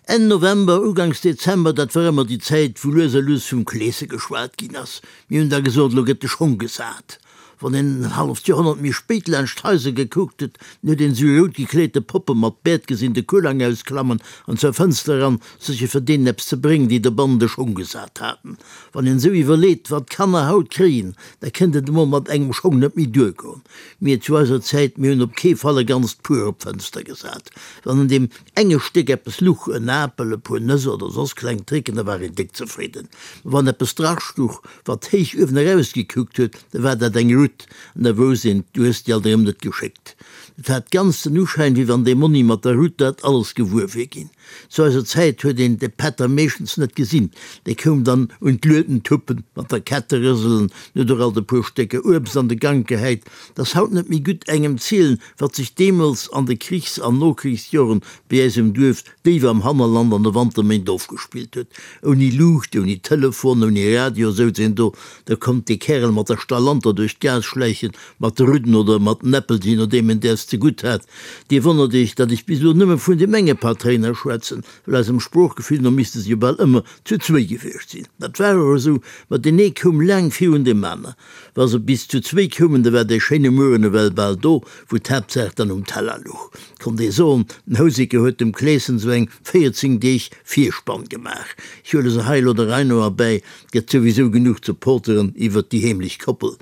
Enn November, Uganks Dezember, dat war ëmmer déi Zäit, wou lues a lues vum Kleese geschwat ginn ass. Mir hunn da gesot, elo gëtt de Schong gesat. Wann een en halleft Joerhonnert méi spéit laanscht d'Haiser gekuckt huet, dann huet een esou rout gekleete Poppe mat Bäert gesinn de Kulang ausklammen an zur Fënster eran, sécher fir deenen eppes ze bréngen, déi dobannen de Schong gesat haten. Wann een esou iwwerleet, wat d'Kanner haut kréien, da kënnt et emol mat engem Schong net méi duergoen. Mir zu eiser Zäit, mir hunn op kee Fall e ganzt Puer op d'Fënster gesat. Wann an deem enge Stéck eppes luch, en Apel, e puer Nëss oder soss kleng Tricken, da war een déck zefridden. Mä wann eppes drastuch, Wat héich uewen eraus gekuckt huet, da war dat eng Rutt, an da wousst een, du hues déi alt erëm net geschéckt. Et hat ganz den Uschäin, wéi wann dee Monni mat der Rutt dat alles gewuer wier ginn. Zu eiser Zäit huet een de Pätter meeschtens net gesinn, dee koum dann un d'Lueden tuppen, mat der Kette rëselen, huet och alt e puer Stécker Uebst an de Gank gehäit. 't ass haut net méi gutt engem zielen, wat sech deemools an de Krichs an Nokrichsjoren bei äis um Duerf déif am Hannerland an de Wanterméint ofgespillt huet. Ouni Luucht, ouni Telefon, ouni Radio souz een do. Da konnt dee Kärel mat der Stalanter duerch d'Gaass schläichen, mat de Rudden oder mat den Äppel, jee nodeem en däers zegutt hat. Dir wonnert iech, datt ech bis elo nëmme vun deem enge Patréiner schwätzen, well eisem Sproochgefill no misste se jo bal ëmmer zu zwéi gewiescht sinn. Dat war och esou, ma deen ee koum laang virun deem aner. Wa se bis zu zwéi koumen, da war dee schéine Mueren ewell bal do, wou d'Haaptsaach dann um Teller luch. Konnt ee soen, den Houseker huet dem Kleeschen sou eng 14 Deeg Virspann gemaach. Ech huele se hei elo der Rei no erbäi, 't gëtt souwisou genuch ze poteren iwwert déi heemlech Koppel.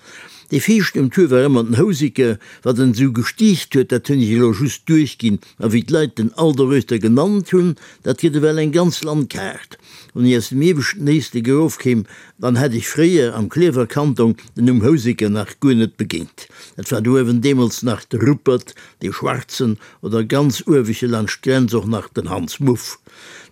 Dee viischten um Tour war ëmmer den Houseker. Wat en esou gestiicht huet, dat hunn ech elo just duerchginn. A wéi d'Leit den Aldereuschter genannt hunn, dat gëtt ewell eng ganz Landkaart. Wann ech aus dem ieweschten Éislek erofkéim, Dann hätt ech fréier am Klierfer Kanton den Numm Houseker nach guer net begéint. Dat war do uewen deemools nach de Ruppert, dee Schwarzen, oder ganz ueweche laanscht d'Grenz och nach den Hans Muff.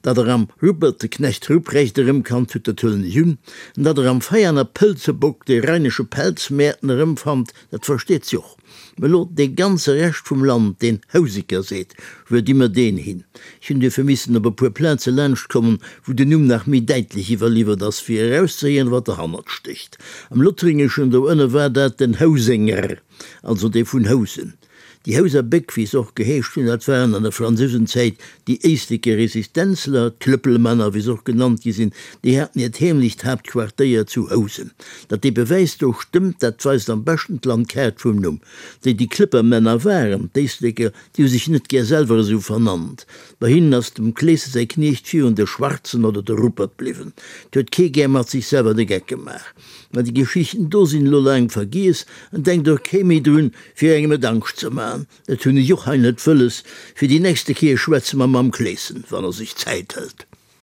Datt der am Ruppert de Knecht Ruprecht erëmkannt hutt, dat huelen ech un. An datt der am Veianer Pëlzebock dee rheinesche Pelzmäerten erëmfannt, dat versteet sech och. Mä elo dee ganze Rescht vum Land, deen Houseker seet, wou di mer deen hin? Ech hunn duerfir missen op e puer Plaze laanschtkommen, wou den Numm nach méi däitlech iwwerliwwert ass, fir erauszehéieren, wat derhannert stécht. Am Lothringeschen do ënne war dat den Housenger, also dee vun Housen. Déi Houser Béck, wéi se och geheescht hunn, dat waren an der Fransousenzäit déi éisleker Resistenzler, d'Klëppelmänner, wéi se och genannt gi sinn, déi haten hiert heemlecht Haaptquartéier zu Housen. Datt dee Bewäis do stëmmt, dat weist am beschten d'Landkaart vum Numm. Déi déi Klëppermänner waren, d'Éisleker, déi hu sech net gär selwer esou vernannt. Bei hinnen ass dem Kleese säi Kniecht virun de Schwarzen oder de Ruppert bliwwen. 't huet kee gär mat sech selwer de Geck gemaach. Mä déi Geschichten do sinn elo laang vergiess an denkt och kee méi drun, fir engem et Angscht ze man. Dat hunn ech och hei net wëlles. Fir déi nächste Kéier schwätze mer mam Kleeschen, wann e sech Zäit hëlt.